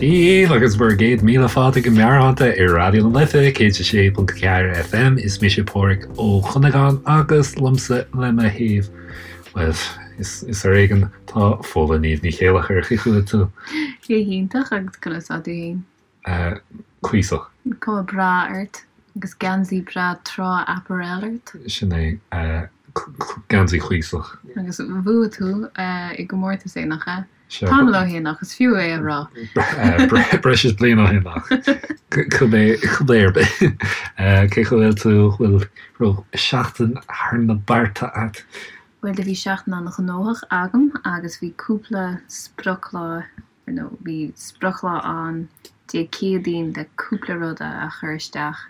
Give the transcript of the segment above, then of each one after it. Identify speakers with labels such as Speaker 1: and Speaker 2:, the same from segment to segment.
Speaker 1: Dia dhaoibh agus bhur gcéad míle fáilte go Meabhairshláinte ar Raidió na Life 106.4 FM. Is mise Páraic Ó Cuinneagáin agus liomsa le mo thaobh, bhuel, is ar éigean, tá Fódhla Niamh Ní Chéileachair. Cén chaoi a bhfuil tú?
Speaker 2: Go hiontach agus conas tá tú féin?
Speaker 1: Cuíosach.
Speaker 2: Cuma breá ort agus geansaí breá trá apparel ort.
Speaker 1: Sin é, geansaí cuíosach.
Speaker 2: Agus bhuaigh tú i gcomórtas é, nach ea? Tamall ó shin ach is fiú é a rá.
Speaker 1: Breis is bliain ó shin ach cibé ar bith. Cén chaoi a bhfuil tú, bhfuil raibh seachtain thar na bearta agat?
Speaker 2: Bhuel do bhí seachtain an-ghnóthach agam agus bhí cúpla sprioclá, nó bhí sprioclá ann Dé Céadaoin le cúpla rud a chur isteach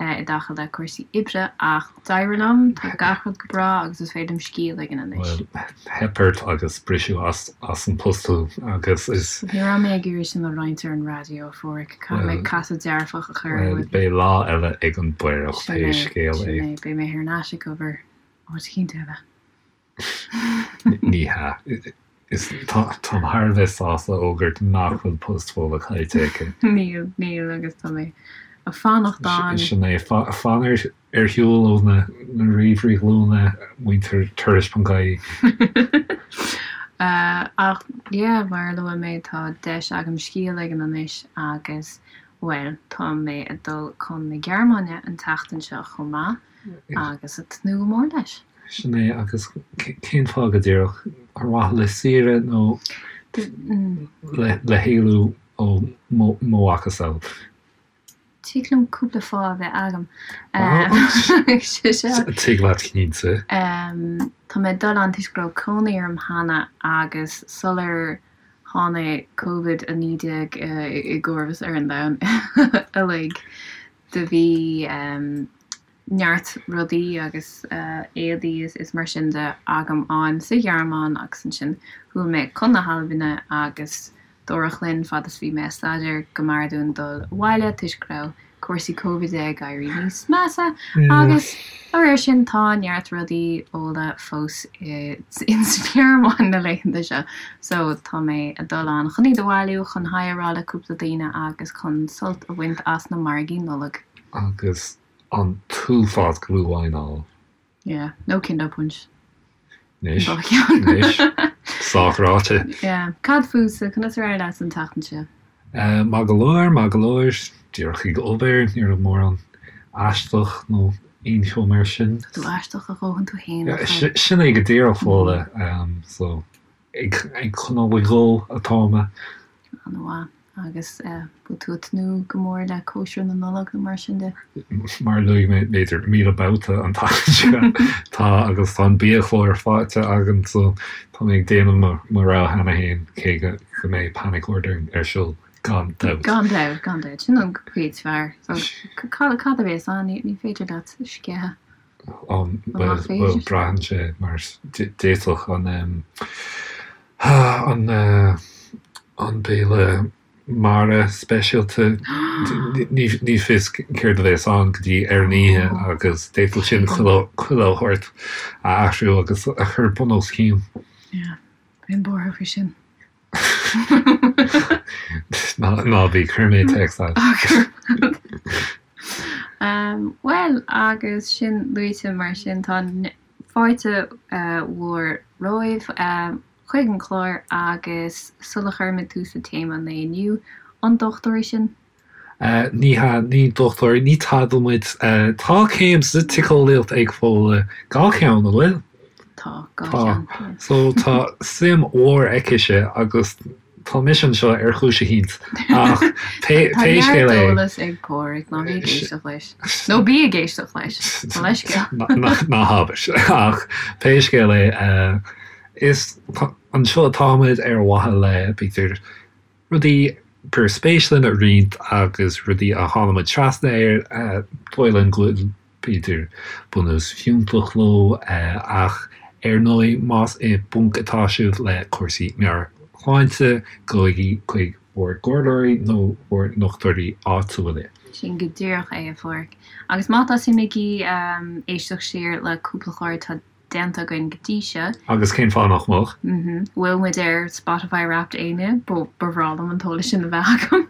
Speaker 2: i dtaca le cúrsaí oibre ach d'éirigh liom, tá gach rud go breá agus is féidir liom scíth a ligean anois.
Speaker 1: Bhuel, theip ort agus briseadh as an post thú agus is.
Speaker 2: Ní raibh mé ag iarraidh sin a roinnt ar an raidió, a Pháraic, caithfidh mé casadh dearfach a chur ar
Speaker 1: rudaí. Beidh lá eile ag an bPaorach pé scéal é.
Speaker 2: Sin é, beidh mé thar n-ais ag obair áit eicínt eile.
Speaker 1: Ní hea. Is táim thar a bheith sásta a fhógairt nach bhfuil post Fódhla caillte aici.
Speaker 2: Níl, níl agus tá mé ag fanacht ann.
Speaker 1: Sin é, fan ar shiúl ó na ríomhairí glúine, muintir turais.ie.
Speaker 2: Ach yeah, mar a luaigh mé, tá deis agam scíth a ligean anois agus, bhuel, tá mé ag dul chun na Gearmáine an tseachtain seo chomh maith. Agus ag tnúth go mór leis.
Speaker 1: Sin é, agus cén fáth go díreach? Ar mhaithe le saoire nó le héalú ó mo mhacasamhail?
Speaker 2: Tig liom cúpla fáth a bheith agam.
Speaker 1: Tig leat cinnte.
Speaker 2: Tá mé ag dul ann toisc go raibh cónaí orm cheana agus sular tháinig Covid-19 i gcomharbas ar an domhan uilig, Do bhí neart rudaí agus éadaí is mar sin de agam ann sa Ghearmáin agus ansin chuaigh mé chun na hAlbaine agus dúradh linn fad is bhí mé ag staidéar go mb'fhearr dúinn dul abhaile toisc go raibh cúrsaí Covid ag éirí níos measa agus dá réir sin tá neart rudaí Fhódhla fós ins an Ghearmáin na laethanta seo so tá mé ag dul ann chun iad a bhailiú, chun haigh a rá le cúpla daoine agus chun sult a bhaint as na margaí Nollag.
Speaker 1: Agus an t-uafás glühwein a fháil.
Speaker 2: Yeah, nó Kinder Punsch.
Speaker 1: Anois, anois, sách ráite.
Speaker 2: Yeah. Cad fútsa, conas ar éirigh leat an tseachtain seo?
Speaker 1: Maith go leor, maith go leor. Díreach ag obair, ní raibh mórán aisteach nó aon cheo mar sin.
Speaker 2: Tá tú aisteach a dhóthain tú féin, nach bhfuil?
Speaker 1: Sin é go díreach, Fódhla. So, ag coinneáil ag dul atá mé.
Speaker 2: An-mhaith. Agus bhfuil tú ag tnúth go mór le cóisir na Nollag nó mar sin de?
Speaker 1: Mar a luaigh mé b'fhéidir 1,000 babhta an tseachtain seo, tá agus tá an biachlár faighte agam so tá mé ag déanamh mo rogha cheana féin cé go mbeidh panic ordering ar siúl gan dabht.
Speaker 2: Gan dabht, gan dabht. Sin an chuid is fearr. So cad a bhéas ann? Ní féidir leat sceitheadh.
Speaker 1: Bhuel, braitheann sé mar d'fhéadfadh an an an béile mara speisialta, ní fios céard a bheas ann go dtí ar an oíche agus d'fhéadfadh sin chuile shórt a athrú agus a chur bun os cionn.
Speaker 2: Yeah, bheinn buartha faoi sin.
Speaker 1: Ná bí, cuirfidh mé téacs agat.
Speaker 2: Bhuel, agus sin luaite mar sin, tá fáilte mhór romhaibh chuig an chlár agus sula chuirimid tús le téama an lae inniu, an dochtúirí sinn?
Speaker 1: Ní hea, ní dochtúirí, ní tada muid. Tá céim sa tsíceolaíocht ag Fódhla, dhá cheann, an bhfuil?
Speaker 2: Tá, dhá cheann,
Speaker 1: yeah. So tá suim mhór aicise agus tá mise anseo ar chúis eicínt ach pé
Speaker 2: Tá
Speaker 1: scéal
Speaker 2: neart
Speaker 1: é.
Speaker 2: eolas ag Páraic, ná bí ag éisteacht leis. Nó bí ag éisteacht leis, mo leithscéal.
Speaker 1: Ná habair. Ach pé scéal é, is anseo atáimid ar mhaithe le, b'fhéidir, rudaí gur spéis linn a roinnt agus rudaí a tháinig muid trasna air, dóigh linn go bhfuil, b'fhéidir, bunús fiúntach leo ach ar ndóigh más i bponc atá sibh le cúrsaí meabhairshláinte, gabhaigí chuig bhur gcomhairleoirí nó bhur ndochtúirí áitiúla.
Speaker 2: Sin go díreach é, a Pháraic. Agus má tá suim agaibh éisteacht siar le cúpla clár, tá. déanta againn go dtí seo.
Speaker 1: Agus cén fáth nach mbeadh?
Speaker 2: Bhfuil muid ar Spotify Wrapped éinne? Ba bhreá liom an t-eolas sin a bheith agam.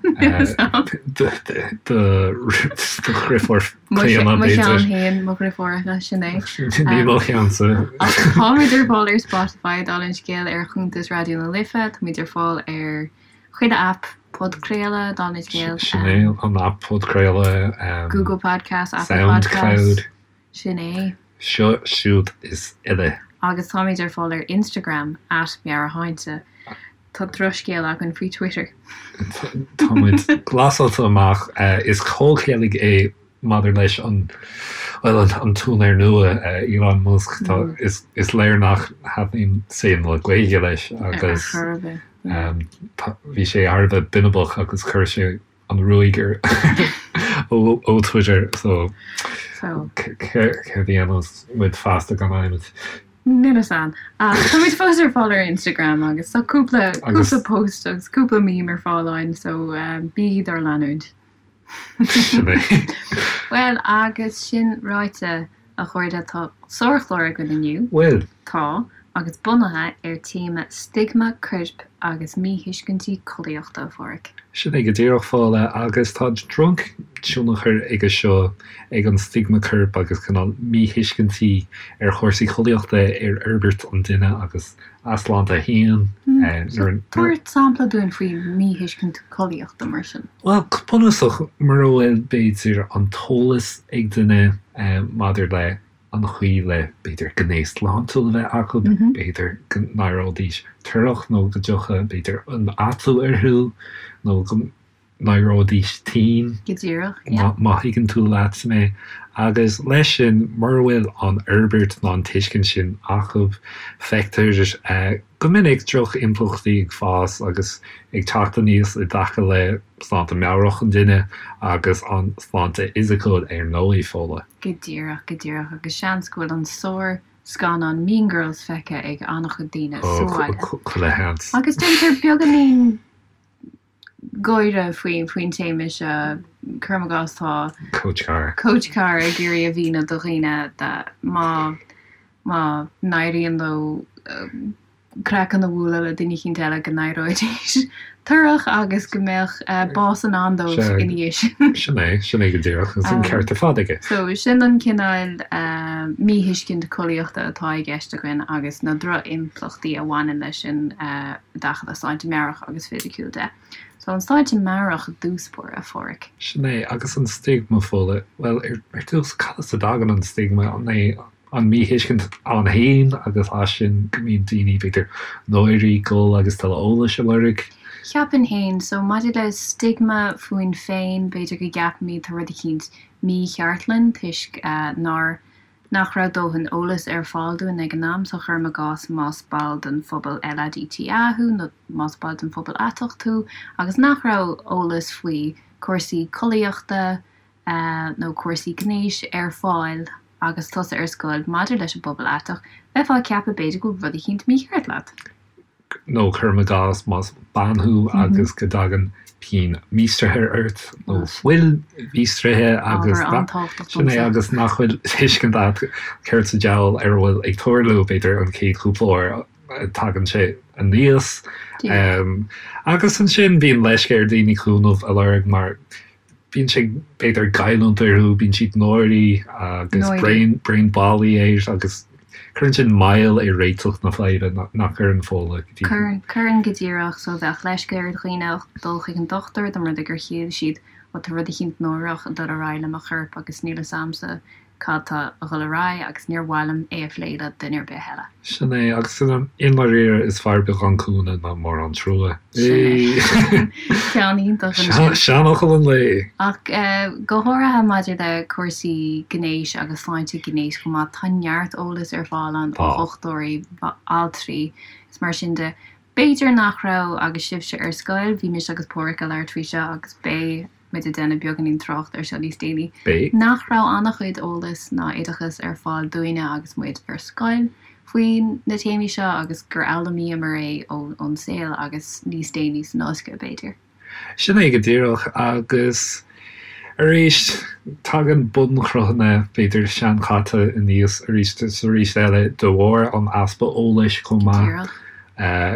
Speaker 1: Do dhriofúr Clíona,
Speaker 2: Mo cheann féin, mo dhriofúracha, sin é.
Speaker 1: Ní mo cheannsa.
Speaker 2: Ach táimid ar fáil ar Spotify, dála an scéil, ar chuntas Raidió na Life, táimid ar fáil ar chuile aip podchraoladh, dála an scéil.
Speaker 1: Sin é, an aip podchraoladh.
Speaker 2: Google Podcasts, Apple Podcasts.
Speaker 1: Soundcloud.
Speaker 2: Sin é.
Speaker 1: Seo, siúd is uile.
Speaker 2: Agus táimid ar fáil ar Instagram, at Meabhairshláinte. Tá drochscéal againn faoi Twitter.
Speaker 1: Táimid glasáilte amach. Is comhcheilg é maidir leis an, bhuel, an t-úinéir nua, Elon Musk. Tá, is, is léir nach thaitníonn saol na Gaeilge leis agus bhí sé thar a bheith binibeach agus chuir sé an ruaig air ó Twitter so céard a dhéanfas muid feasta gan adhmad?
Speaker 2: Níl fhios a'm. Ach táimid fós ar fáil ar Instagram agus tá cúpla cúpla post agus cúpla meme ar fáil ann so bígí dár leanúint.
Speaker 1: Sin é.
Speaker 2: Bhuel agus sin ráite a chairde tá sárchlár againn inniu.
Speaker 1: Bhfuil?
Speaker 2: Tá, agus bunaithe ar téama stigma coirp agus míthuiscintí collaíochta, a Pháraic.
Speaker 1: Sin é go díreach, Fódhla, agus tá drochthionchar aige seo, ag an stigma coirp agus cineál míthuiscintí ar chúrsaí collaíochta ar fhorbairt an duine agus a sláinte féin.
Speaker 2: So, tabhair sampla dúinn faoi míthuiscint collaíochta mar sin.
Speaker 1: Bhuel, go bunúsach, mura bhfuil, b'fhéidir, an t-eolas ag duine maidir le an chaoi le, b'fhéidir, gnéas sláintiúil a bheith acu, b'fhéidir go n-éireoidís torrach nó go dtiocfadh, b'fhéidir, an atú orthu nó go n-éireoidís tinn.
Speaker 2: Go díreach, yeah.
Speaker 1: Má thuigeann tú leat mé. Agus leis sin, mura bhfuil an fhorbairt ná an tuiscint sin acu, feictear go minic droch-impleachtaí ag fás agus ag teacht aníos i dtaca le sláinte meabhrach an duine agus an sláinte fhisiciúil ar ndóigh, Fódhla.
Speaker 2: Go díreach, go díreach, agus seans go bhfuil an sár-scannán Mean Girls feicthe ag an-chuid daoine sa bhaile.
Speaker 1: Chuile sheans.
Speaker 2: Agus déantar beagáinín gáire faoin téama seo, cuirim i gcás tá
Speaker 1: Coach Carr.
Speaker 2: Coach Carr ag iarraidh a mhíniú do dhaoine má má n-éiríonn leo craiceann a bhualadh le duine eicínt eile go n-éireoidís torrach agus go mbeadh bás i ndán dóibh ina dhiaidh
Speaker 1: sin. Sin é, sin é go díreach, agus an ceart ar fad aige.
Speaker 2: So, sin an cineál míthuiscint collaíochta atá i gceist againn agus na droch-impleachtaí a bhaineann leis sin i dtaca le sláinte meabhrach agus fisiciúil de. So, an sláinte meabhrach i dtús báire, a Pháraic.
Speaker 1: Sin é, agus an stigma, Fódhla, bhuel, ar dtús, cad as a dtagann an stigma? An é an míthuiscint ann féin agus as sin go mbíonn daoine, b'fhéidir, náirithe dul agus tuilleadh eolais a lorg.
Speaker 2: Cheapfainn féin, so maidir le stigma fúinn féin, b'fhéidir go gceapaimid tá rud eicínt mícheart linn toisc nár, nach raibh dóthain eolais ar fáil dúinn ag an am, so cuirim i gcás más ball den phobal LADTA thú nó más ball den phobal aiteach tú agus nach raibh eolas faoi cúrsaí collaíochta, nó cúrsaí gnéis ar fáil agus tusa ar scoil maidir leis an bpobal aiteach, bheifeá ag ceapadh b'fhéidir go bhfuil rud eicínt mícheart leat.
Speaker 1: Nó cuirim i gcás más bean thú agus go dtagann pian míostraithe ort nó fuil mhíostraithe agus sin é agus nach bhfuil tuiscint agat céard sa diabhal ar a bhfuil ag tarlú, b'fhéidir an chéad chúpla uair a tagann sé aníos. Agus ansin bíonn leisce ar daoine cúnamh a lorg mar Bíonn sé, b'fhéidir, ag goilliúint orthu, bíonn siad náirithe agus braon, braon bailí air agus cuireann sin moill ar réiteach na faidhbe, nach gcuireann, Fódhla,
Speaker 2: go dtí. Cuireann, cuireann go díreach. So bheadh leisce ar dhaoine dul chuig an dochtúir dá mba rud é gur shíl siad, ó tá rud eicínt náireach ag dul ar aghaidh le mo chorp agus níl fhios a'msa cad tá a dhul ar aghaidh agus níor mhaith liom é a phlé le duine ar bith eile.
Speaker 1: Sin é, agus i ndáiríre is fearr beagán cúnamh ná mórán trua.
Speaker 2: Sin é. Ceann iontach ansin.
Speaker 1: Seanfhocal an lae!
Speaker 2: Ach go háirithe maidir le cúrsaí gnéis agus sláinte gnéis chomh maith, tá neart eolais ar fáil ann ó dhochtúirí, altraí is mar sin de. B'fhéidir nach raibh agus sibhse ar scoil, bhí mise agus Páraic ag labhairt faoi seo agus beidh muid ag déanamh beagáinín trácht ar seo níos déanaí,
Speaker 1: Beidh.
Speaker 2: nach raibh an-chuid eolais ná oideachas ar fáil dúinne agus muid ar scoil faoi na téamaí seo agus gur fhoghlaimíomar é ón saol agus níos déanaí san ollscoil b'fhéidir.
Speaker 1: Sin é go díreach agus. Arís, tagann bunchruthanna, b'fhéidir, seanchaite aníos arís is arís eile de bharr an easpa eolais chomh maith,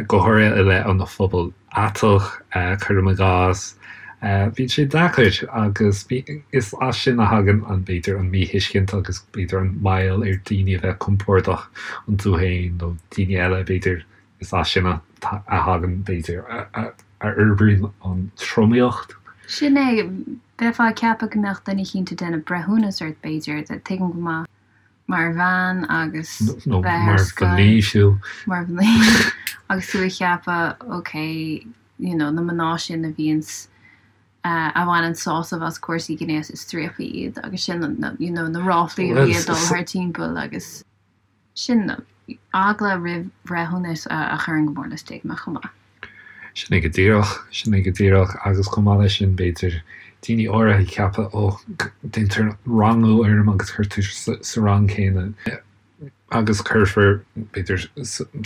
Speaker 1: go háirithe i leith an phobail aiteach, cuirim i gcás. Bíonn sé deacair agus is as sin a thagann an, b'fhéidir, an míthuiscint agus b'fhéidir an moill ar daoine a bheith compordach iontu féin nó daoine eile, b'fhéidir, Is as sin a thagann, b'fhéidir, a fhorbraíonn an tromaíocht.
Speaker 2: Sin é. Bheifeá ag ceapadh go mbeadh duine eicínt ag déanamh breithiúnas ort, b'fhéidir. Tuigim go maith. Mar bhean agus
Speaker 1: bheith ar scoil. Nó mar mhnaoi, fiú.
Speaker 2: Mar mhnaoi. Agus tú ag ceapadh, ok, you know, na mná sin a bhíonns, a bhaineann sásamh as cúrsaí gnéis is striapaí iad agus sin, you know, na ráflaí a bhí ag dul thar timpeall agus. Sin eagla roimh bhreithiúnas a chuireann go mór le stigma chomh maith.
Speaker 1: Sin é go díreach, sin é go díreach agus chomh maith leis sin b'fhéidir daoine áirithe ag ceapadh ó déantar rangú orm agus cuirtear sa rang céanna agus cuirfear b'fhéidir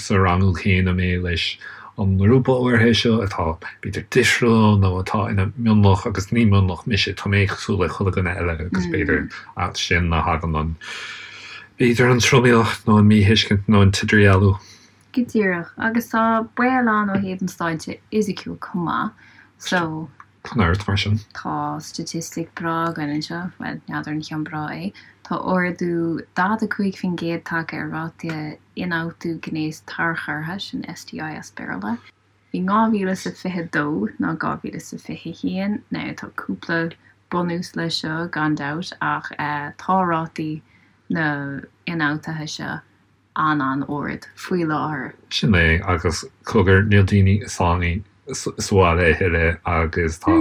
Speaker 1: sa rangú céanna mé leis an ngrúpa áirithe seo atá b'fhéidir difriúil nó atá ina mionlach agus ní mionlach mise, tá mé cosúil le chuile dhuine eile agus b'fhéidir as sin a thagann an B'fhéidir an tromaíocht nó an míthuiscint nó an t-idirdhealú.
Speaker 2: Go díreach. Agus tá baol ann ó thaobh an sláinte fhisiciúil chomh maith. So.
Speaker 1: Tá neart mar sin.
Speaker 2: Tá staitistic breá againn anseo, bhuel, n'fheadar an ceann breá é. Tá ardú 45% tagtha ar ráta ionfhabhtú gnéas tarchurtha, sin STI as Béarla, i 2022 ná 2021. Now tá cúpla bunús leis seo gan dabht ach tá rátaí na n-ionfhabhtuithe seo an-an-ard faoi láthair.
Speaker 1: Sin é, agus cogar, níl daoine sáinnithe sa bhaile a thuilleadh agus tá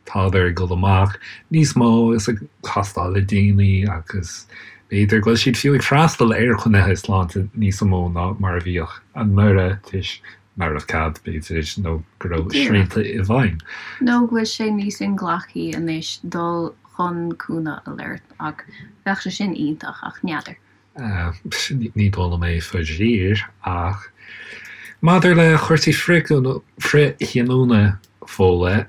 Speaker 1: tádar ag dul amach níos mó is ag castáil le daoine agus b'fhéidir go bhfuil siad fiú ag freastal ar chruinnithe sláinte níos mó ná mar a bhíodh anuraidh toisc nach raibh cead, b'fhéidir, nó go raibh srianta i bhfeidhm.
Speaker 2: Nó go bhfuil sé níos inghlacthaí anois dul chun cúnamh a lorg ach bheadh sé sin iontach ach n'fheadar.
Speaker 1: Ní dóigh liom é faraor, ach maidir le cúrsaí frithghiniúna Fódhla,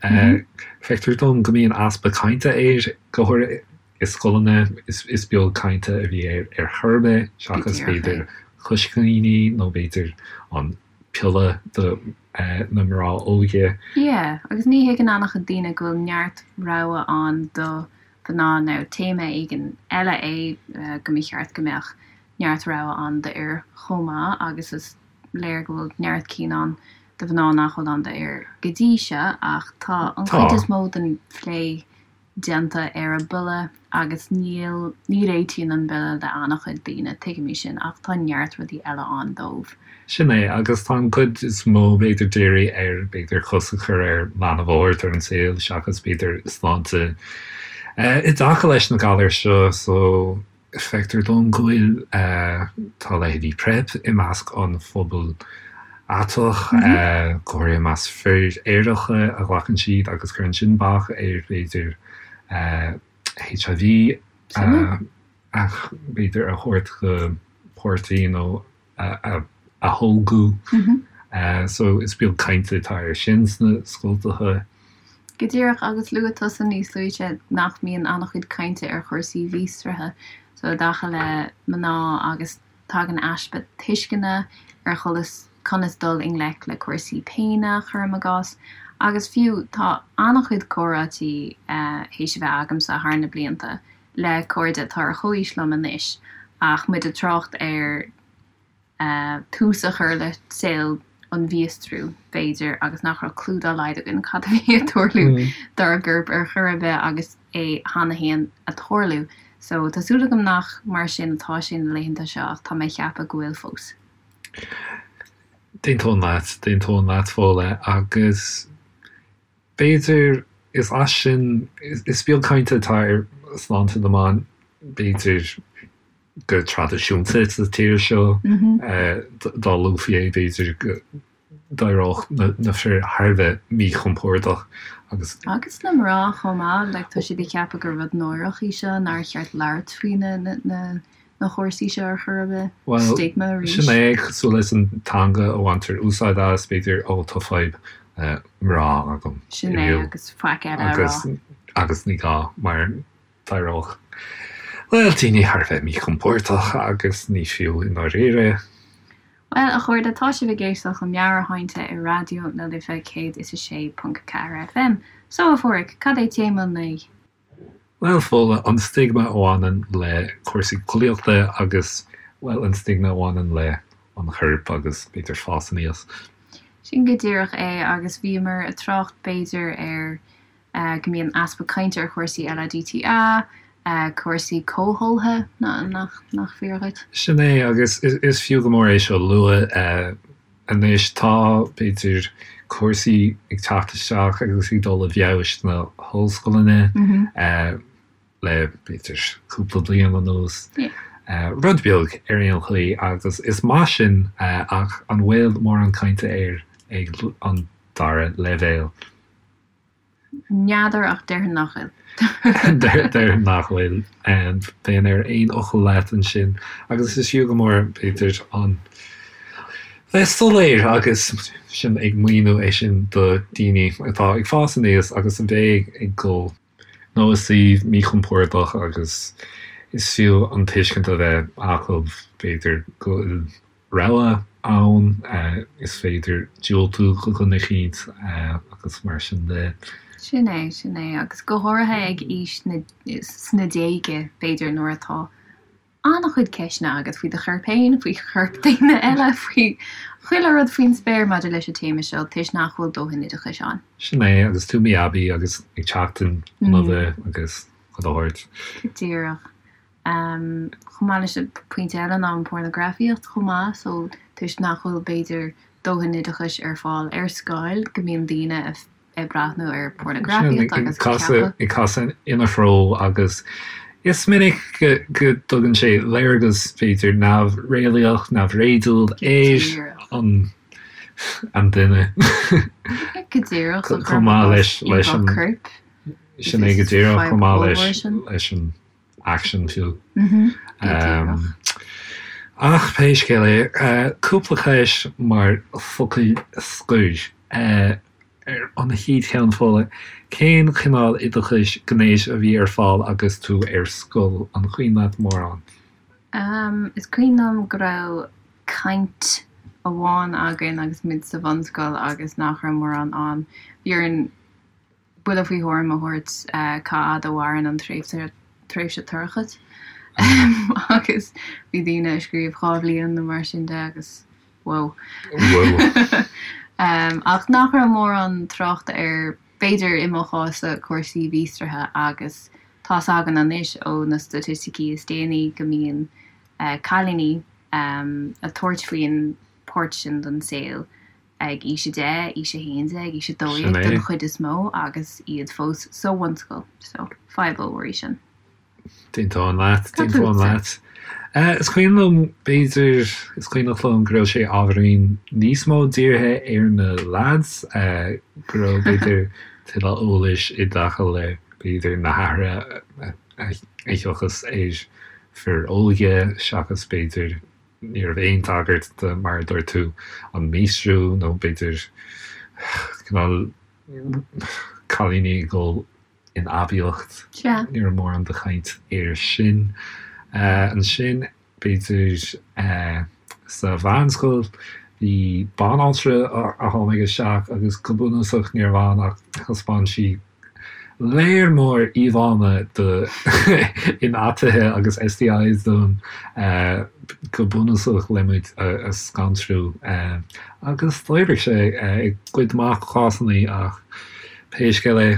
Speaker 1: feictear dom go mbíonn easpa cainte air, go háirithe i scoileanna. Is beag cainte a bhí air ar chor ar bith, seachas b'fhéidir coiscíní nó b'fhéidir an piolla do na mná óga.
Speaker 2: Yeah, agus ní thuigeann an-chuid daoine go bhfuil neart rogha ann do mhná nó téama éigin eile é go mba cheart go mbeadh neart rogha ann d'fhir chomh maith agus is léir go bhfuil neart cinn ann do mhná nach bhfuil ann d'fhir go dtí seo ach tá an chuid is mó den phlé déanta ar an bpiolla agus níl, ní réitíonn an bpiolla le an-chuid daoine, tuigimid sin ach tá neart rudaí eile ann dóibh.
Speaker 1: Sin é, agus tá an cuid is mó, b'fhéidir, dírithe ar, b'fhéidir, cosc a chur ar leanbh a thabhairt ar an saol seachas, b'fhéidir, sláinte i dtaca leis na galair seo. So, feictear dom go bhfuil, tá leithéidí PrEP i measc an phobail aiteach, go háirithe i measc fir aeracha a ghlacann siad agus cuireann sin bac ar, b'fhéidir, HIV a, b'fhéidir, a thabhairt go páirtí nó a tholgadh. So is beag cainte atá air sin sna scoltacha.
Speaker 2: Go díreach, agus luaigh tusa níos luaithe nach mbíonn an-chuid cainte ar chúrsaí mhíostraithe so i dtaca le mná agus tagann easpa tuisceana ar chonas conas dul i ngleic le cúrsaí péine, cuirim i gcás. Agus fiú tá an-chuid comhráití théis a bheith agamsa thar na blianta le cairde atá ar chomhaois liom anois ach muid ag trácht ar tús a chur le saol an mhíostrú, b'fhéidir, agus nach raibh clue dá laghad againn cad a bhí ag tarlú dár gcorp ar chor ar bith agus é cheana féin ag tarlú. So, tá súil agam nach mar sin atá sé na laethanta seo ach tá mé ag ceapadh go bhfuil fós.
Speaker 1: D'aontóinn leat, d'aontóinn leat, Fódhla, agus B'fhéidir, is as sin, is beag cainte atá ar shláinte na mban, b'fhéidir, go traidisiúnta sa tír seo. Dá luafaí é, b'fhéidir go d'éireodh na fir thar a bheith míchompordach
Speaker 2: agus. Agus na mná chomh maith, like tá siad ag ceapadh gur rud náireach í seo, nár cheart labhairt faoi na na na cúrsaí seo ar chor ar bith.
Speaker 1: Bhuel,
Speaker 2: Stigma arís.
Speaker 1: sin é, cosúil leis an teanga a bhaintear úsáid as, b'fhéidir, ó tá fadhb mná agam
Speaker 2: Sin é, agus faic eile a rá.
Speaker 1: Agus. Agus ní gá, mar d'éireodh, bhuel, daoine thar a bheith míchompordach agus ní fiú i ndáiríre.
Speaker 2: Bhuel, a chairde, tá sibh ag éisteacht le Meabhairshláinte ar Raidió na Life 106.4 FM. So, a Pháraic, cad é téama an lae?
Speaker 1: Bhuel, Fódhla, an stigma a bhaineann le cúrsaí collaíochta agus, bhuel, an stigma a bhaineann le an chorp agus, b'fhéidir, fás aníos.
Speaker 2: Sin go díreach é, agus bhíomar ag trácht, b'fhéidir, ar go mbíonn easpa cainte ar chúrsaí LADTA, cúrsaí comhtholgtha, nach fíor dhuit?
Speaker 1: Sin é, agus is fiú go mór é seo a lua anois. Tá, b'fhéidir, cúrsaí ag teacht isteach agus ag dul i bhfeabhas sna hollscoileanna le, b'fhéidir, cúpla bliain anuas. Rud beag ar aon chaoi, agus is maith sin, ach an bhfuil mórán cainte air ag an dara leibhéal?
Speaker 2: N'fheadar ach déarfainn nach bhfuil.
Speaker 1: Déarfainn nach bhfuil. Bheinn ar aon fhocal leat ansin. Agus is fiú go mór, b'fhéidir, an bheith soiléir agus sinn ag míniú é sin do daoine atá ag fás aníos agus a bheidh ag dul nó i suíomh míchompordach agus is fiú an tuiscint a bheith acu, b'fhéidir, go bhfuil rogha ann, is féidir diúltú do dhuine eicínt agus mar sin de.
Speaker 2: Sin é, sin é. Agus go háirithe ag aois na, sna déaga, b'fhéidir, nuair atá an-chuid ceisteanna agat faoi do chorp féin, faoi chorp daoine eile, faoi chuile rud faoin spéir maidir leis an téama seo, toisc nach bhfuil dóthain oideachais ann.
Speaker 1: Sin é, agus tú mí-aibí agus ag teacht in inmhe agus chuile shórt.
Speaker 2: Go díreach. Chomh maith leis sin, pointe eile ná an pornagrafaíocht chomh maith, so toisc nach bhfuil b'fhéidir dóthain oideachais ar fáil ar scoil go mbíonn daoine ag breathnú ar pornagrafaíocht agus
Speaker 1: ag ceapadh. Ag casadh ina threo agus is minic go dtugann sé léargas b'fhéidir neamhréalaíoch, neamhréadúil ar an an duine.
Speaker 2: Go díreach,
Speaker 1: chomh maith leis an
Speaker 2: corp.
Speaker 1: Sin é go díreach chomh maith leis an aicsean fiú. Ach pé scéal é, cúpla ceist mar focail scoir. Ar an chéad cheann, Fódhla, cén cineál oideachais gnéis a bhí ar fáil agus tú ar scoil? An cuimhin leat mórán?
Speaker 2: Is cuimhin liom go raibh caint amháin againn agus muid sa bhunscoil agus nach raibh mórán ann. Bhí orainn buille faoi thuairim a thabhairt cá fhad a mhaireann an tréimhse tréimhse toirchis agus bhí daoine ag scríobh 2 bhliain nó mar sin de agus whoa.
Speaker 1: Whoa.
Speaker 2: Ach nach raibh mórán tráchta ar, b'fhéidir i mo chás-sa, cúrsaí míostraithe agus tá's againn anois ó na staitisticí is déanaí go mbíonn cailíní ag tabhairt faoin bpáirt sin den saol ag aois 10, aois 11, aois 12 den chuid is mó agus iad fós sa bhunscoil. So, fadhb ollmhór í sin.
Speaker 1: D'aontóinn leat, d'aontóinn leat. Is cuimhin liom, b'fhéidir, is cuimhneach liom go raibh sé ábhairín níos mó dírithe ar na lads, go raibh, b'fhéidir, tuilleadh eolais i dtaca le, b'fhéidir, na hathruithe a thiocfas ar fir óga seachas, b'fhéidir, Ní raibh aon tagairt do, mar a dúirt tú, an míostrú nó b'fhéidir cineál cailíní ag dul in aibíocht. Ní raibh mórán de chaint air sin. Ansin, b'fhéidir sa mheánscoil, bhí banaltra a tháinig isteach agus go bunúsach ní raibh ann ach thaispeáin sí léar mór íomhánna de ionfhabhtuithe agus STIs dúinn go bunúsach le muid a scanrú agus d'oibrigh sé i gcuid mhaith cásanna ach pé scéal
Speaker 2: é.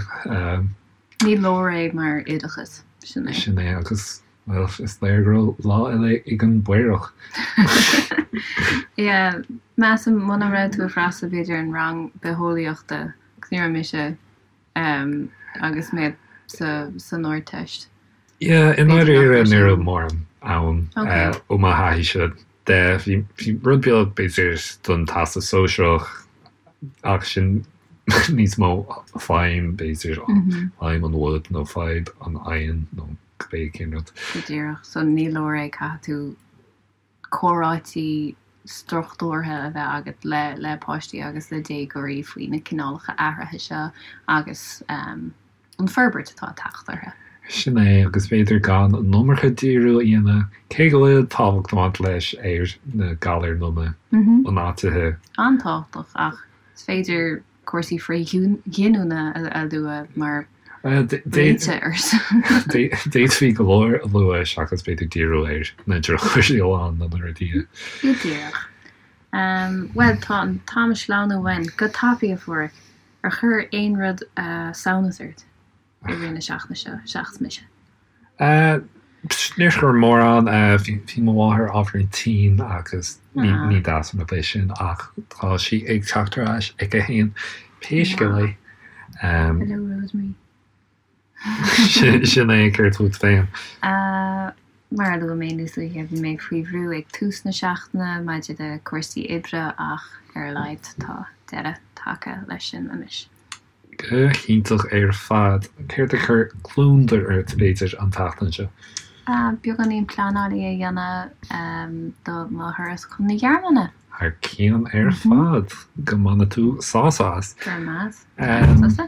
Speaker 2: Ní leor é mar oideachas,
Speaker 1: sin é. Sin é agus, bhuel, is léir go raibh lá eile ag an bPaorach.
Speaker 2: Yeah, measaim muna raibh tú ag freastal b'fhéidir an rang bitheolaíochta agus ní raibh mise agus mé san Ardteist.
Speaker 1: Yeah, i ndáiríre ní raibh mórán ann ó mo thaithíse de. Bhí rud beag b'fhéidir don Teastas Sóisearach ach sin níos mó feidhm b'fhéidir, feidhm an bhoid nó feidhm an oighinn nó cibé cén rud.
Speaker 2: Go díreach, so ní leor é, caithfidh tú comhráití struchtúrtha a bheith agat le le páistí agus le déagóirí faoi na cineálacha athraithe seo agus an an forbairt atá ag teacht orthu.
Speaker 1: Sin é, agus b'fhéidir gan an iomarca díriú a dhéanamh, cé go bhfuil tábhacht ag baint leis, ar na galair loma ionáitithe.
Speaker 2: An-tábhachtach, ach is féidir cúrsaí frithghiniúna a lua mar réiteach air
Speaker 1: sin. D'fhéadfaí go leor a lua seachas b'fhéidir díriú ar na drochchúrsaí amháin nó na rudaí a.
Speaker 2: Go díreach. Bhuel, tá an t-am ag sleamhnú uainn go tapaidh, a Pháraic. Ar chuir aon rud samhnas ort i rith na seachtaine seo, seachas mise?
Speaker 1: Níor chuir mórán. Bhí mo mháthair ábhairín tinn agus ní deas an rud é sin ach tá sí ag teacht ar ais aici féin pé scéal é.
Speaker 2: Hello Rosemary.
Speaker 1: Sin é, céard fút féin?
Speaker 2: Mar a luaigh mé níos luaithe, bhí mé faoi bhrú ag tús na seachtaine maidir le cúrsaí oibre ach ar a laghad tá deireadh tagtha leis sin anois.
Speaker 1: Go hiontach ar fad. Céard a chuir gliondar ort, b'fhéidir, an tseachtain seo?
Speaker 2: Beagáinín pleanála a dhéanamh do mo thuras chun na Gearmáine.
Speaker 1: Thar cionn ar fad. Go mbaine tú sásamh as.
Speaker 2: Go raibh maith agat. Tusa?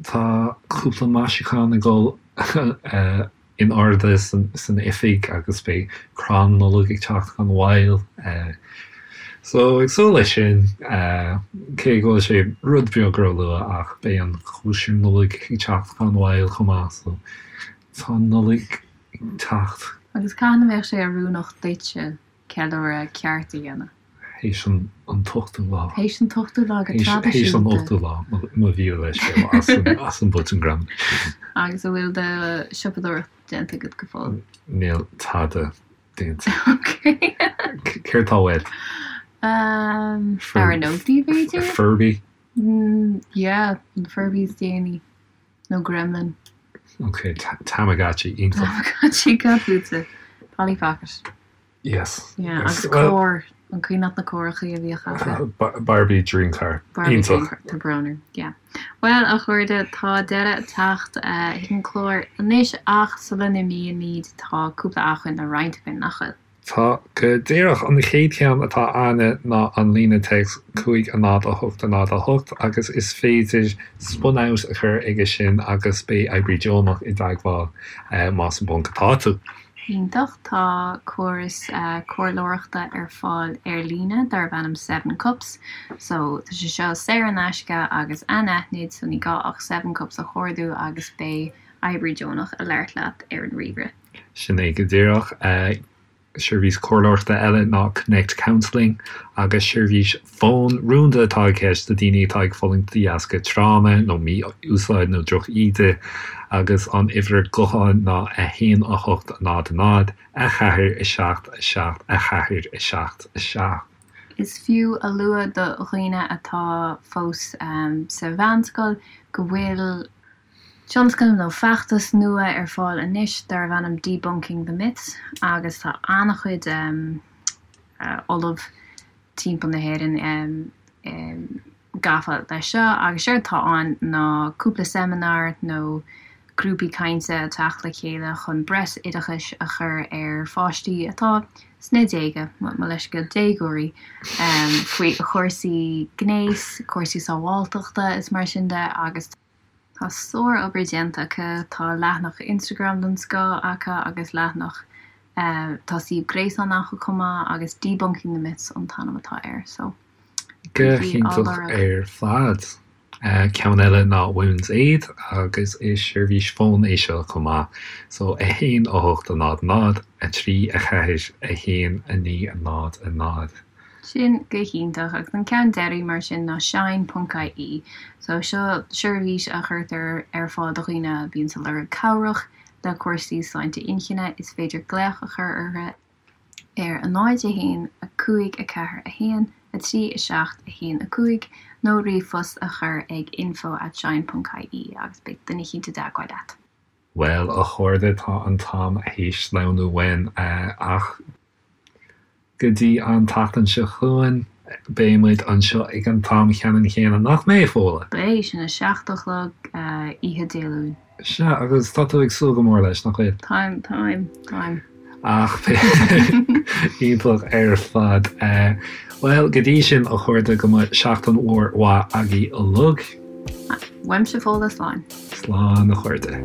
Speaker 1: Tá cúpla maisiúchán ag dul in airde san oifig agus beidh crann Nollag ag teacht gan mhoill. So ag súil leis sin, cé go bhfuil sé rud beag róluath ach beidh an chóisir Nollag ag teacht gan mhoill chomh maith so tá an Nollaig ag teacht.
Speaker 2: Agus cathain a bheadh sé oiriúnach duitse ceiliúradh ceart a dhéanamh?
Speaker 1: Théis an t-ochtú lá.
Speaker 2: Théis an t-ochtú lá go traidisiúnta.
Speaker 1: Théis an ochtú lá, mo mhíle leithscéal as an botún gramadaí.
Speaker 2: Agus an bhfuil do siopadóireacht déanta agat go fóill?
Speaker 1: Níl tada déanta.
Speaker 2: Ok.
Speaker 1: Céard tá uait?
Speaker 2: Leabhar nótaí, b'fhéidir?
Speaker 1: Furby?
Speaker 2: Yeah, an Furby is déanaí. Nó Gremlin.
Speaker 1: Ok, Tamagotchi, iontach.
Speaker 2: Tamagotchi, cad fútsa? Polly Pocket.
Speaker 1: Yes.
Speaker 2: Yeah, agus carr, an cuimhin leat na carrachaí a bhíodh
Speaker 1: acu? Barbie Dream Car.
Speaker 2: Barbie Dream Car, tá brón orm, yeah. Bhuel, a chairde, tá deireadh ag teacht chuig an chlár anois ach sula n-imímid tá cúpla acmhainn le roinnt againn, nach bhfuil?
Speaker 1: Tá, go díreach. An chéad cheann atá againne ná an líne téacs 5 0 8 0 8 agus is féidir spunout a chur aige sin agus beidh oibrí deonach i dteagmháil más i bponc atá tú.
Speaker 2: Iontach. Tá córas comhairleoireachta ar fáil ar líne darb ainm Seven Cups. So, tá sé seo saor in aisce agus anaithnid, so ní gá ach Seven Cups a chuardú agus beidh oibrí deonach ag labhairt leat ar an ríomhaire.
Speaker 1: Sin é go díreach. Seirbhís comhairleoireachta eile ná Connect Counselling agus seirbhís fóin rúnda atá i gceist do daoine atá ag fulaingt de dheasca tráma nó mí-úsáid nó droch-íde agus an uimhir gutháin ná 1 8 0 0 4 7 7 4 7 7.
Speaker 2: Is fiú a lua do dhaoine atá fós sa mheánscoil go bhfuil tionscnamh nó feachtas nua ar fáil anois darbh ainm Debunking the Myths agus tá an-chuid ollamh timpeall na hÉireann gafa leis seo agus séard atá ann ná cúpla seimineár nó grúpaí cainte ag teacht le chéile chun breis oideachais a chur ar pháistí atá sna déaga, mo leithscéal, déagóirí, faoi chúrsaí gnéis, cúrsaí sábháilteachta is mar sin de agus. Tá sár-obair déanta acu, tá leathanach Instagram den scoth acu agus leathanach, tá suíomh gréasáin acu chomh maith agus Debunking the Myths an t-ainm atá air so
Speaker 1: Go bígí á hiontach lorg. ar fad. Ceann eile ná Women's Aid agus is seirbhís fóin é seo chomh maith so 1 8 0 0 3 4 1 9 0 0.
Speaker 2: Sin go hiontach. Agus an ceann deiridh mar sin ná Shine ponc ie. So seo seirbhís a chuirtear ar fáil do dhaoine a bhíonns ag lorg cabhrach le cúrsaí sláinte inchinne. Is féidir glaoch a chur orthu ar 0 1 5 4 1 3 7 1 5 nó ríomhphost a chur ag info at shine ponc ie agus beidh duine eicínt i dteagmháil leat.
Speaker 1: Bhuel, a chairde, tá an t-am théis sleamhnú uainn, ach Go dtí an tseachtain seo chugainn, beidh muid anseo ag an t-am cheannann chéanna, nach mbeidh, Fódhla?
Speaker 2: Beidh, sin a 7 a chlog oíche Dé Luain.
Speaker 1: Sea, agus tá tú ag súil go mór leis, nach bhfuil?
Speaker 2: Táim, táim, táim.
Speaker 1: Ach iontach ar fad. Bhuel, go dtí sin, a chairde, go mbeidh seachtain mhór mhaith agaibh uilig.
Speaker 2: Uaimse Fódhla, slán.
Speaker 1: Slán a chairde.